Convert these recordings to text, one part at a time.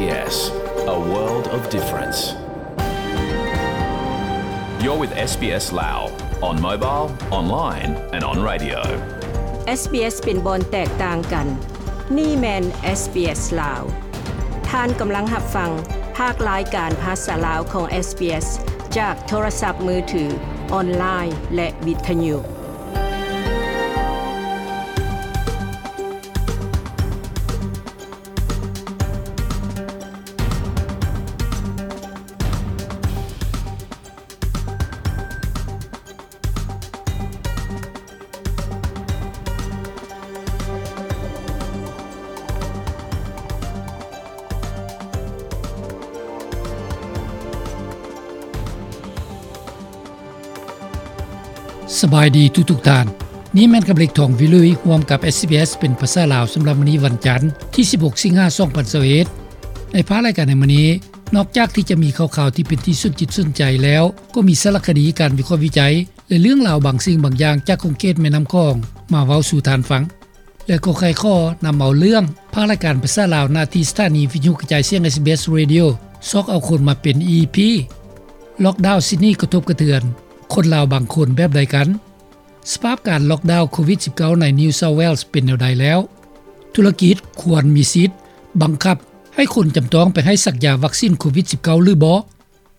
SBS, a world of difference. You're with SBS Lao on mobile, online and on radio. SBS ເປັນບ່ອນແຕກຕ່າງກັນ. ນີ້ແມ່ນ SBS ລາວ. ທ່ານກຳລັງຮັບຟັງພາກລາຍການພາສາລາວຂອງ SBS ຈາກໂທລະສັບມືຖື, ອອນລາຍ ແລະ ວິທະຍຸ. ສະບາຍດີທຸກໆທ່ານ. ນີ້ແມ່ນກຳເລັກ ທອງວິລຸຍ ຮ່ວມກັບ SBS ເປັນພາສາລາວ ສຳລັບມື້ນີ້ວັນຈັນ ທີສິບຫົກ ສິງຫາ ສອງພັນຊາວເອັດ. ໃນພາກລາຍການໃນມື້ນີ້, ນອກຈາກທີ່ຈະມີຂ່າວໆທີ່ເປັນທີ່ສົນຈິດສົນໃຈແລ້ວ, ກໍມີສາລະຄະດີ, ການວິເຄາະວິໄຈ ແລະ ເລື່ອງລາວບາງສິ່ງບາງຢ່າງຈາກຂົງເຂດແມ່ນ້ຳຂອງ ມາເວົ້າສູ່ທ່ານຟັງ. ແລະ ກໍໄຂຂໍ້ນຳເອົາເລື່ອງພາກລາຍການພາສາລາວ ໜ້າທີ່ສະຖານີວິທະຍຸກະຈາຍສຽງ SBS Radio ຊອກເອົາຄົນມາເປັນ EP. ລ໊ອກດາວຊິດນີກະທົບກະເທືອນຄົນລາວບາງຄົນແບບໃດກັນ? ສະພາບການລ໊ອກດາວໂຄວິດສິບເກົ້າໃນ New South Wales ເປັນແນວໃດແລ້ວ? ທຸລະກິດຄວນມີສິດບັງຄັບໃຫ້ຄົນຈຳຕ້ອງໄປໃຫ້ສັກຢາວັກຊິນໂຄວິດສິບເກົ້າ ຫຼືບໍ່?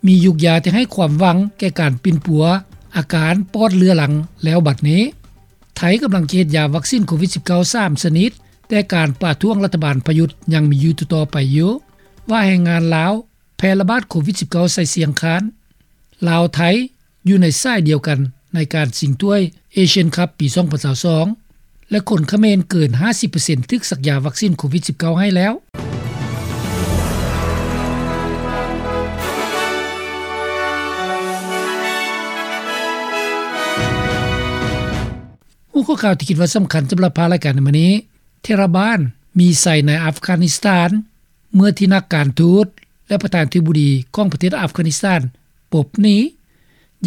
ມີຢູກຢາທີ່ໃຫ້ຄວາມຫວັງແກ່ການປິ່ນປົວອາການປອດເລືອຫຼັງແລ້ວບັດນີ້. ໄທກຳລັງຈະເຮັດຢາວັກຊິນໂຄວິດສິບເກົ້າ ສາມຊະນິດ, ແຕ່ການປະທ້ວງລັດຖະບານປະຍຸດຍັງມີຢູ່ຕໍ່ໆໄປຢູ່. ວ່າແຮງງານລາວແຜ່ລະບາດໂຄວິດສິບເກົ້າໃສ່ຊຽງຄານ. ລາວ-ໄທຢູ່ໃນສາຍດຽວກັນໃນການຊິງຖ້ວຍ Asian Cup ປີສອງພັນຊາວສອງ ແລະ ຄົນຂະເໝນເກີນຫ້າສິບເປີເຊັນຖືກສັກຢາວັກຊິນໂຄວິດສິບເກົ້າໃຫ້ແລ້ວ. ຫົວຂໍ້ຂ່າວທີ່ຄິດວ່າສຳຄັນສຳລັບພາກລາຍການໃນມື້ນີ້, ເທລະບານມີໄຊໃນອັຟການິສຖານ ເມື່ອທີ່ນັກການທູດ ແລະ ປະທານາທິບໍດີຂອງປະເທດອັຟການິສຖານປົບໜີ.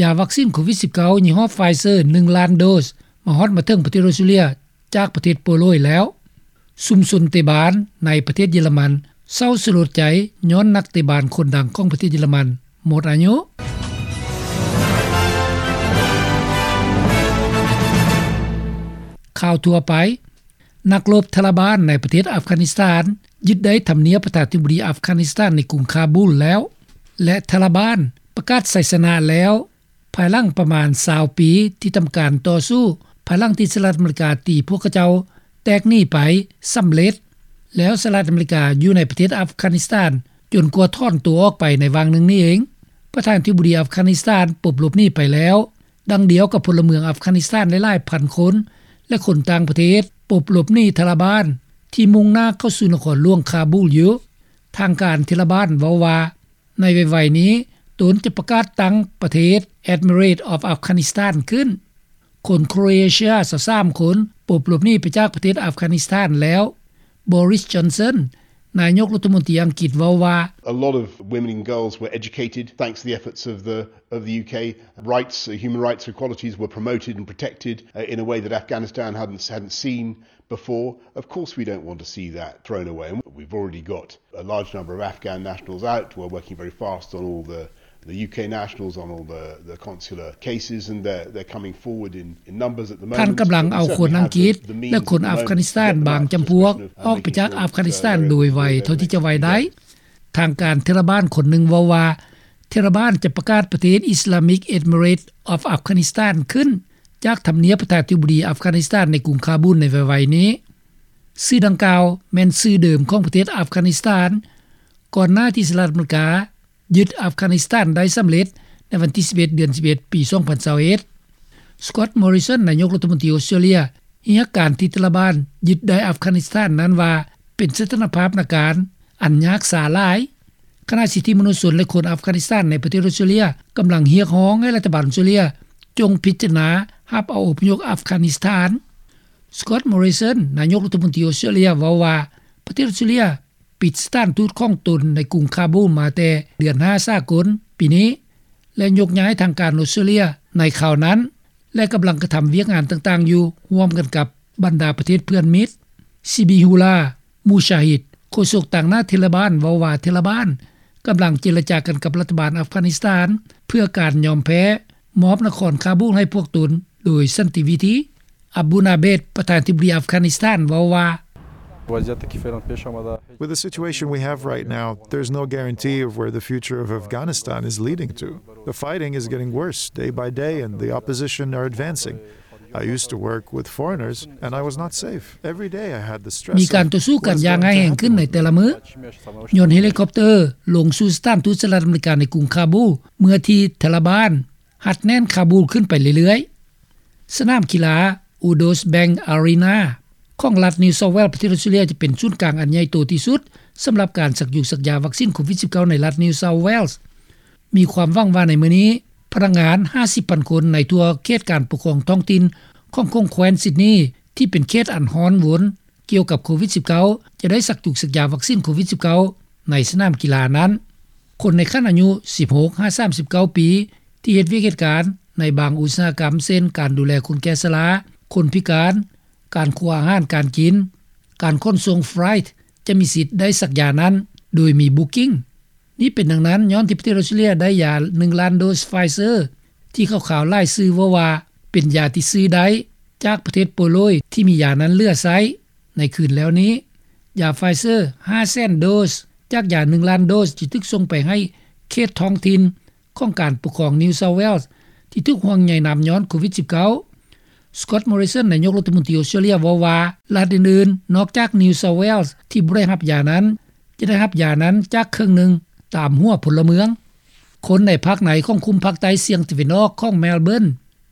ຢາວັກຊິນໂຄວິດສິບເກົ້າ ຍີ່ຫໍ້ Pfizer ໜຶ່ງລ້ານໂດສ ມາຮອດມາເຖິງປະເທດອອສເຕຣເລັຍຈາກປະເທດໂປໂລຍແລ້ວ. ຊຸມຊົນເຕບານໃນປະເທດເຢຍລະມັນເສົ້າສະຫຼົດໃຈຍ້ອນນັກເຕະບານຄົນດັງຂອງປະເທດເຢຍລະມັນໝົດອາຍຸ. ຂ່າວທົ່ວໄປ. ນັກລົບທາລະບານໃນປະເທດອັຟການິສຖານຍຶດໄດ້ທຳນຽບປະທານາທິບໍດີອັຟການິສຖານໃນກຸງຄາບູລແລ້ວ ແລະ ທາລະບານປະກາດໄຊຊະນະແລ້ວ ພາຍຫຼັງປະມານຊາວປີທີ່ທຳການຕໍ່ສູ້ ພາຍຫຼັງທີ່ສະຫະລັດອາເມລິກາຕີພວກເຂົາເຈົ້າແຕກໜີໄປສຳເລັດ, ແລ້ວສະຫະລັດອາເມລິກາຢູ່ໃນປະເທດອັຟການິສຖານຈົນກວ່າຖອນຕົວອອກໄປໃນຫວ່າງໜຶ່ງນີ້ເອງ. ປະທານາທິບໍດີອັຟການິສຖານປົບຫຼົບໜີໄປແລ້ວ, ດັ່ງດຽວກັບພົນລະເມືອງອັຟການິສຖານຫຼາຍໆພັນຄົນ ແລະ ຄົນຕ່າງປະເທດປົບຫຼົບໜີທາລະບານທີ່ມຸ່ງໜ້າເຂົ້າສູ່ນະຄອນຫຼວງຄາບູລຢູ່. ທາງການເທລະບານເວົ້າວ່າ ໃນໄວໆນີ້ ຕົນຈະປະກາດຕັ້ງປະເທດ Emirate of Afghanistan ຂຶ້ນ. ຄົນໂຄຣເອເຊຍຊາວສາມຄົນປົບຫຼົບໜີໄປຈາກປະເທດອັຟການິສຖານແລ້ວ. ບໍຣິສ ຈອນສັນ ນາຍົກລັດຖະມົນຕີອັງກິດເວົ້າວ່າ A lot of women and girls were educated thanks to the efforts of the, of the UK. Rights, uh, human rights, equalities were promoted and protected, uh, in a way that Afghanistan hadn't, hadn't seen before. Of course we don't want to see that thrown away. And we've already got a large number of Afghan nationals out. We're working very fast on all the, the UK nationals, on all the, the consular cases, and they're, they're coming forward in, in numbers at the moment. ທ່ານກຳລັງເອົາຄົນອັງກິດ ແລະ ຄົນອັຟການິສຖານບາງຈຳພວກອອກໄປຈາກອັຟການິສຖານໂດຍໄວເທົ່າທີ່ຈະໄວໄດ້. ທາງການເທລະບານຄົນໜຶ່ງເວົ້າວ່າ ເທລະບານຈະປະກາດປະເທດ Islamic Emirate of Afghanistan ຂຶ້ນຈາກທຳນຽບປະທານາທິບໍດີອັຟການິສຖານໃນກຸງຄາບູນໃນໄວໆນີ້. ຊື່ດັ່ງກ່າວແມ່ນຊື່ເດີມຂອງປະເທດອັຟການິສຖານ ກ່ອນໜ້າທີ່ສະຫະລັດອາເມລິກາຍຶດອັຟການິສຖານໄດ້ສຳເລັດໃນວັນທີສິບເອັດ ເດືອນສິບເອັດ ປີສອງພັນຊາວເອັດ. ສະກອດ ມໍຣິສັນ ນາຍົກລັດຖະມົນຕີອອສເຕຣເລັຍ ຮຽກການທີ່ຕາລະບານຍຶດໄດ້ອັຟການິສຖານນັ້ນວ່າ ເປັນສະຖານະພາບນາການອັນຍາກຊ້າຫຼາຍ, ຂະນະສິດທິມະນຸດຊົນ ແລະ ຄົນອັຟການິສຖານໃນປະເທດອອສເຕຣເລັຍກຳລັງຮຽກຮ້ອງໃຫ້ລັດຖະບານອອສເຕຣເລັຍຈົ່ງພິຈາລະນາຮັບເອົາອົບພະຍົບອັຟການິສຖານ. ສະກອດ ມໍຣິສັນ ນາຍົກລັດຖະມົນຕີອອສເຕຣເລັຍເວົ້າວ່າ ປະເທດອອສເຕຣເລັຍ ປິດສະຖານທູດຂອງຕົນໃນກຸງຄາບູມາແຕ່ເດືອນຫ້າສາກົນປີນີ້ ແລະ ຍົກຍ້າຍທາງການອອສເຕຣເລັຍໃນຄາວນັ້ນ ແລະ ກຳລັງກະທຳວຽກງານຕ່າງໆຢູ່ ຮ່ວມກັນກັບບັນດາປະເທດເພື່ອນມິດ. ຊີບີຮູລາ ມູຊາຮິດ ໂຄສົກຕາງໜ້າເທລະບານເວົ້າວ່າ ເທລະບານກຳລັງເຈລະຈາກັນກັບລັດຖະບານອັຟການິສຖານ ເພື່ອການຍອມແພ້ມອບນະຄອນຄາບູລໃຫ້ພວກຕົນໂດຍສັນຕິວິທີ. ອາບູນາເບດ ປະທານທິບໍດີອັຟການິສຖານເວົ້າວ່າ With the situation we have right now, there's no guarantee of where the future of Afghanistan is leading to. The fighting is getting worse day by day and the opposition are advancing. I used to work with foreigners and I was not safe. Every day I had the stress ມີການຕໍ່ສູ້ກັນຢ່າງຮ້າຍແຮງຂຶ້ນໃນແຕ່ລະມື້ ຍ້ອນເຮລິຄອບເຕີລົງສູ່ສະຖານທູດສະຫະລັດອາເມລິກາໃນກຸງຄາບູ ເມື່ອທີ່ທາລະບານຮັດແໜ້ນຄາບູຂຶ້ນໄປເລື້ອຍໆ. ສະໜາມກິລາ Udo's Bank Arena ຂອງລັດ New South Wales ປະເທດອອສເຕຣເລັຍ ຈະເປັນສູນກາງອັນໃຫຍ່ໂຕທີ່ສຸດ ສຳລັບການສັກຢູສັກຢາວັກຊິນໂຄວິດ-19 ໃນລັດ New South Wales. ມີຄວາມຫວັງວ່າໃນມື້ນີ້ ພະນັກງານ ຫ້າສິບພັນຄົນ ໃນທົ່ວເຂດການປົກຄອງທ້ອງຖິ່ນຂອງແຂວງ Sydney ທີ່ເປັນເຂດອັນຮ້ອນວົນ ກ່ຽວກັບໂຄວິດ-19 ຈະໄດ້ສັກຢູສັກຢາວັກຊິນໂຄວິດ-19 ໃນສະໜາມກິລານັ້ນ. ຄົນໃນຂັ້ນອາຍຸ ສິບຫົກຫາສາມສິບເກົ້າປີ ທີ່ເຮັດວຽກເຮັດການໃນບາງອຸດສາຫະກຳ ເຊັ່ນ ການດູແລຄົນແກ່ຊະລາ, ຄົນພິການ, ການຄົວອາຫານການກິນ, ການຂົນສົ່ງ freight ຈະມີສິດໄດ້ສັກຢານັ້ນໂດຍມີ booking. ນີ້ເປັນດັ່ງນັ້ນ ຍ້ອນທີ່ປະເທດອອສເຕຣເລັຍໄດ້ຢາ ໜຶ່ງລ້ານໂດສ Pfizer ທີ່ຂ່າວໆຫຼາຍສື່ເວົ້າວ່າ ເປັນຢາທີ່ຊື້ໄດ້ຈາກປະເທດໂປໂລຍ ທີ່ມີຢານັ້ນເຫຼືອໃຊ້. ໃນຄືນແລ້ວນີ້ ຢາ Pfizer ຫ້າແສນໂດສ ຈາກຢາ ໜຶ່ງລ້ານໂດສ ຈະຖືກສົ່ງໄປໃຫ້ເຂດທ້ອງຖິ່ນຂອງການປົກຄອງ New South Wales ທີ່ຖືກຫ່ວງໃຍນຳຍ້ອນໂຄວິດ-19. Scott Morrison ນາຍົກລັດຖະມົນຕີອອສເຕຣເລັຍເວົ້າວ່າ ລັດອື່ນໆ ນອກຈາກ New South Wales ທີ່ບໍ່ໄດ້ຮັບຢານັ້ນ ຈະໄດ້ຮັບຢານັ້ນຈາກເຄິ່ງໜຶ່ງຕາມຫົວພົນລະເມືອງ. ຄົນໃນພາກໃນຂອງຄຸ້ມພາກໃຕ້ສ່ຽງຕາເວັນອອກຂອງ Melbourne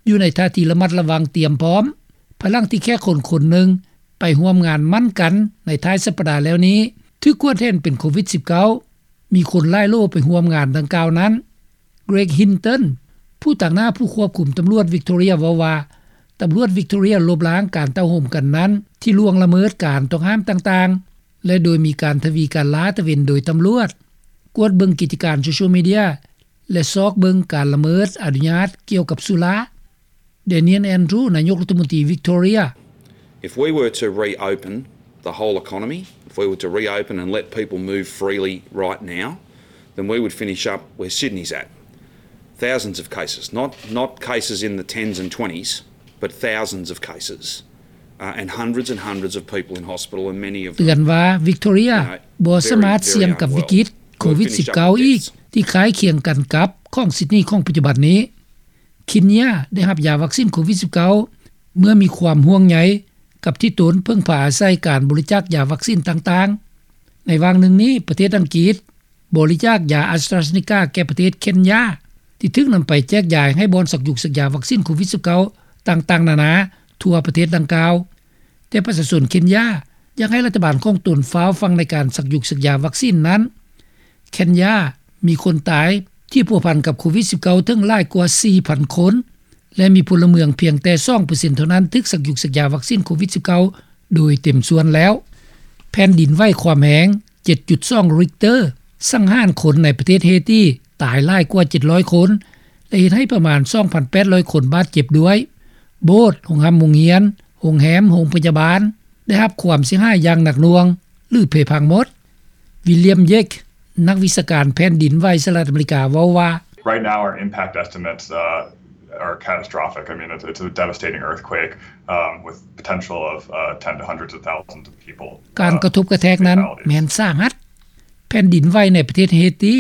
ຢູ່ໃນທ່າທີລະມັດລະວັງຕຽມພ້ອມ ພາຍຫຼັງທີ່ແຂກຄົນຄົນໜຶ່ງໄປຮ່ວມງານໝັ້ນກັນໃນທ້າຍສັບປະດາແລ້ວນີ້ ຖືກກວດເຫັນເປັນໂຄວິດ-19. ມີຄົນຫຼາຍໂຫຼໄປຮ່ວມງານດັ່ງກ່າວນັ້ນ. Greg Hinton ຜູ້ຕາງໜ້າຜູ້ຄວບຄຸມຕຳຫຼວດ Victoria ເວົ້າວ່າ ຕຳຫຼວດ Victoria ລົບລ້າງການເຕົ້າໂຮມກັນນັ້ນ ທີ່ລ່ວງລະເມີດການຕ້ອງຫ້າມຕ່າງໆ ແລະ ໂດຍມີການທະວີການລາດຕະເວນໂດຍຕຳຫຼວດ, ກວດເບິ່ງກິດຈະການໂຊຊຽວມີເດຍ ແລະ ຊອກເບິ່ງການລະເມີດອະນຸຍາດກ່ຽວກັບສຸລາ. Daniel Andrews ນາຍົກລັດຖະມົນຕີ Victoria. If we were to reopen the whole economy, if we were to reopen and let people move freely right now, then we would finish up where Sydney's at. Thousands of cases, not, not cases in the tens and twenties, but thousands of cases. Uh, and hundreds and hundreds of people in hospital and many of them ເຕືອນວ່າ Victoria ບໍ່ສາມາດສ່ຽງກັບວິກິດໂຄວິດ-19 ອີກ ທີ່ຄ້າຍຄຽງກັນກັບຂອງ Sydney ຂອງປັດຈຸບັນນີ້. ເຄນຢາໄດ້ຮັບຢາວັກຊິນໂຄວິດ-19 ເມື່ອມີຄວາມຫ່ວງໃຍກັບທີ່ຕົນເພິ່ງພາອາໄສການບໍລິຈາກຢາວັກຊິນຕ່າງໆ. ໃນຫວ່າງໜຶ່ງນີ້ ປະເທດອັງກິດ ບໍລິຈາກຢາ AstraZeneca ແກ່ປະເທດເຄນຢາ ທີ່ຖືກນຳໄປແຈກຢາຍໃຫ້ບ່ອນສັກຢູສັກຢາວັກຊິນໂຄວິດ-19 ຕ່າງໆນານາທົ່ວປະເທດດັ່ງກ່າວ. ແຕ່ປະຊາຊົນເຄນຢາຢາກໃຫ້ລັດຖະບານຂອງຕົນຟ້າວຟັ່ງໃນການສັກຢູສັກຢາວັກຊິນນັ້ນ. ເຄນຢາມີຄົນຕາຍທີ່ພົວພັນກັບໂຄວິດ-19 ເຖິງຫຼາຍກວ່າ ສີ່ພັນຄົນ ແລະ ມີພົນລະເມືອງພຽງແຕ່ ສອງເປີເຊັນເທົ່ານັ້ນຖືກສັກຢູສັກຢາວັກຊິນໂຄວິດ-19 ໂດຍເຕັມສ່ວນແລ້ວ. ແຜ່ນດິນໄຫວຄວາມແຮງ ເຈັດຈຸດສອງ Richter ສັງຫານຄົນໃນປະເທດເຮຕີຕາຍຫຼາຍກວ່າ ເຈັດຮ້ອຍຄົນ ແລະ ເຮັດໃຫ້ປະມານ ສອງພັນແປດຮ້ອຍຄົນບາດເຈັບດ້ວຍ. ໂບດ, ໂຮງຮ່ຳໂຮງຮຽນ, ໂຮງແຮມ, ໂຮງພະຍາບານ ໄດ້ຮັບຄວາມເສຍຫາຍຢ່າງໜັກໜ່ວງ ຫຼື ເພພັງໝົດ. William Yake ນັກວິຊາການແຜ່ນດິນໄຫວສະຫະລັດອາເມລິກາເວົ້າວ່າ Right now, our impact estimates, uh, are catastrophic. I mean, it's, it's a devastating earthquake, um, with potential of, uh, ten to hundreds of thousands of people. ການກະທົບກະແທກນັ້ນແມ່ນສາຫັດ. ແຜ່ນດິນໄຫວໃນປະເທດເຮຕີ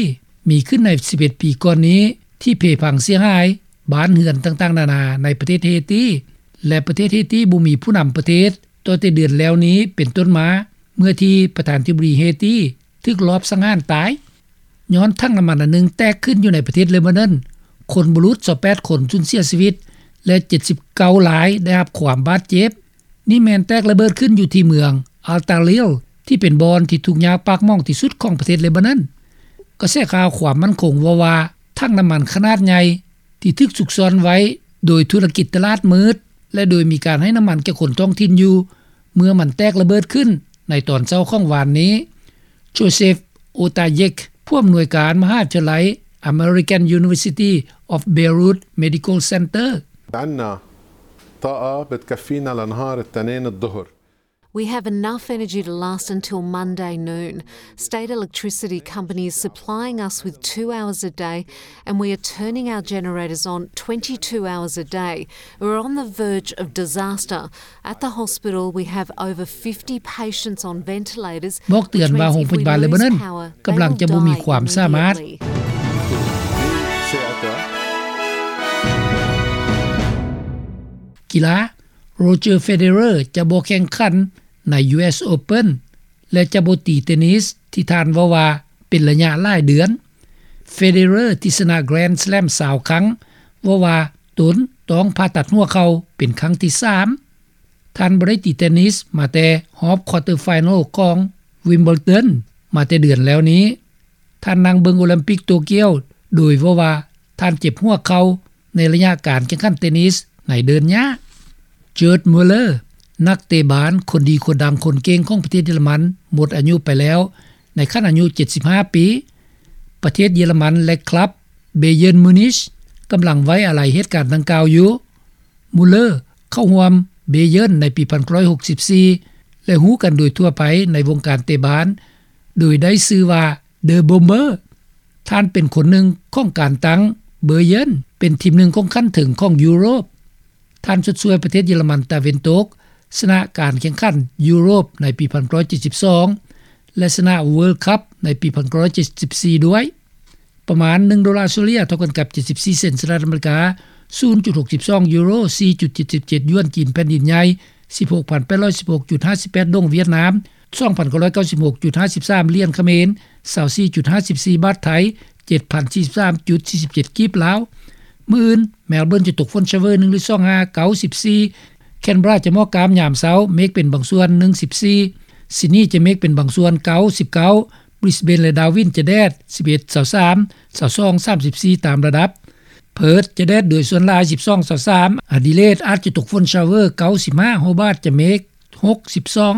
ມີຂຶ້ນໃນ ສິບເອັດ ປີກ່ອນນີ້ ທີ່ເພພັງເສຍຫາຍບ້ານເຮືອນຕ່າງໆນານາໃນປະເທດເຮຕີ ແລະ ປະເທດເຮຕີບໍ່ມີຜູ້ນຳປະເທດ ຕັ້ງແຕ່ເດືອນແລ້ວນີ້ເປັນຕົ້ນມາ ເມື່ອທີ່ປະທານທິບໍດີເຮຕີຖືກລອບສັງຫານຕາຍ ຍ້ອນຖັງນ້ຳມັນອັນໜຶ່ງແຕກຂຶ້ນຢູ່ໃນປະເທດເລບານອນ, ຄົນບໍ່ຫຼຸດຊາວແປດຄົນສູນເສຍຊີວິດ ແລະ ເຈັດສິບເກົ້າລາຍໄດ້ຮັບຄວາມບາດເຈັບ. ນີ້ແມ່ນແຕກລະເບີດຂຶ້ນຢູ່ທີ່ເມືອງ Al Talil ທີ່ເປັນບ່ອນທີ່ທຸກຍາກປາກໝອງທີ່ສຸດຂອງປະເທດເລບານອນ. ກະແສຂ່າວຄວາມໝັ້ນຄົງເວົ້າວ່າ ຖັງນ້ຳມັນຂະໜາດໃຫຍ່ທີ່ຖືກຊຸກຊ້ອນໄວ້ໂດຍທຸລະກິດຕະຫຼາດມືດ ແລະ ໂດຍມີການໃຫ້ນ້ຳມັນແກ່ຄົນທ້ອງຖິ່ນຢູ່ ເມື່ອມັນແຕກລະເບີດຂຶ້ນໃນຕອນເຊົ້າຂອງວານນີ້. Joseph Otajek ຜູ້ອຳນວຍການມະຫາວິທະຍາໄລ American University of Beirut Medical Center. عنا طاقة بتكفينا لنهار التنين الظهر. We have enough energy to last until Monday noon. State electricity company is supplying us with two hours a day, and we are turning our generators on twenty-two hours a day. We're on the verge of disaster. At the hospital, we have over fifty patients on ventilators, ບອກເຕືອນວ່າໂຮງພະຍາບານເລບານອນກຳລັງຈະບໍ່ມີຄວາມສາມາດ. ກິລາ Roger Federer ຈະບໍ່ແຂ່ງຂັນໃນ US Open ແລະ ຈະບໍ່ຕີເຕນິສທີ່ທ່ານເວົ້າວ່າເປັນໄລຍະຫຼາຍເດືອນ. Federer ທີ່ຊະນະ Grand Slam ຊາວຄັ້ງ ເວົ້າວ່າຕົນຕ້ອງຜ່າຕັດຫົວເຂົ່າເປັນຄັ້ງທີສາມ. ທ່ານບໍ່ໄດ້ຕີເຕນິສມາແຕ່ຮອບ quarter final ຂອງ Wimbledon ມາແຕ່ເດືອນແລ້ວນີ້. ທ່ານນັ່ງເບິ່ງໂອລິມປິກໂຕກຽວ ໂດຍເວົ້າວ່າທ່ານເຈັບຫົວເຂົ່າໃນໄລຍະການແຂ່ງຂັນເຕນິສໃນເດີ່ນຫຍ້າ. Gerd Muller ນັກເຕະບານຄົນດີຄົນດັງຄົນເກັ່ງຂອງປະເທດເຢຍລະມັນ ໝົດອາຍຸໄປແລ້ວໃນຂັ້ນອາຍຸເຈັດສິບຫ້າປີ. ປະເທດເຢຍລະມັນ ແລະ ຄລັບ Bayern Munich ກຳລັງໄວ້ອາໄລເຫດການດັ່ງກ່າວຢູ່. Muller ເຂົ້າຮ່ວມ Bayern ໃນປີພັນເກົ້າຮ້ອຍຫົກສິບສີ່ ແລະ ຮູ້ກັນໂດຍທົ່ວໄປໃນວົງການເຕະບານ ໂດຍໄດ້ຊື່ວ່າ The Bomber. ທ່ານເປັນຄົນໜຶ່ງຂອງການຕັ້ງ Bayern ເປັນທີມໜຶ່ງຂອງຂັ້ນເທິງຂອງຢູໂຣບ. ທ່ານຊົດຊ່ວຍປະເທດເຢຍລະມັນຕາເວັນຕົກ ຊະນະການແຂ່ງຂັນຢູໂຣບໃນປີພັນເກົ້າຮ້ອຍເຈັດສິບສອງ ແລະ ຊະນະ World Cup ໃນປີພັນເກົ້າຮ້ອຍເຈັດສິບສີ່ດ້ວຍ. ປະມານໜຶ່ງໂດລາເສລີຍ ເທົ່າກັນກັບເຈັດສິບສີ່ເຊັນສະຫະລັດອາເມລິກາ, ສູນຈຸດຫົກສິບສອງຢູໂຣ, ສີ່ຈຸດເຈັດສິບເຈັດຢວນຈີນແຜ່ນດິນໃຫຍ່, ສິບຫົກພັນແປດຮ້ອຍສິບຫົກຈຸດຫ້າສິບແປດດົງຫວຽດນາມ, ສອງພັນເກົ້າຮ້ອຍເກົ້າສິບຫົກຈຸດຫ້າສິບສາມຫຼຽນຂະເໝນ, ຊາວສີ່ຈຸດຫ້າສິບສີ່ບາດໄທ, ເຈັດພັນສີ່ສິບສາມຈຸດສີ່ສິບເຈັດກີບລາວ. ມື້ອື່ນ Melbourne ຈະຕົກຝົນຊາວເວີໜຶ່ງຫຼືສອງຫາເກົ້າສິບສີ່, Canberra ຈະໝອກກາມຍາມເຊົ້າ, ເມກເປັນບາງສ່ວນໜຶ່ງສິບສີ່, Sydney ຈະເມກເປັນບາງສ່ວນເກົ້າສິບເກົ້າ, Brisbane ແລະ Darwin ຈະແດດສິບເອັດ ຊາວສາມ ຊາວສອງ ສາມສິບສີ່ຕາມລະດັບ. Perth ຈະແດດໂດຍສ່ວນຫຼາຍສິບສອງ ຊາວສາມ, Adelaide ອາດຈະຕົກຝົນຊາວເວີເກົ້າສິບຫ້າ, Hobart ຈະເມກຫົກສິບສອງ.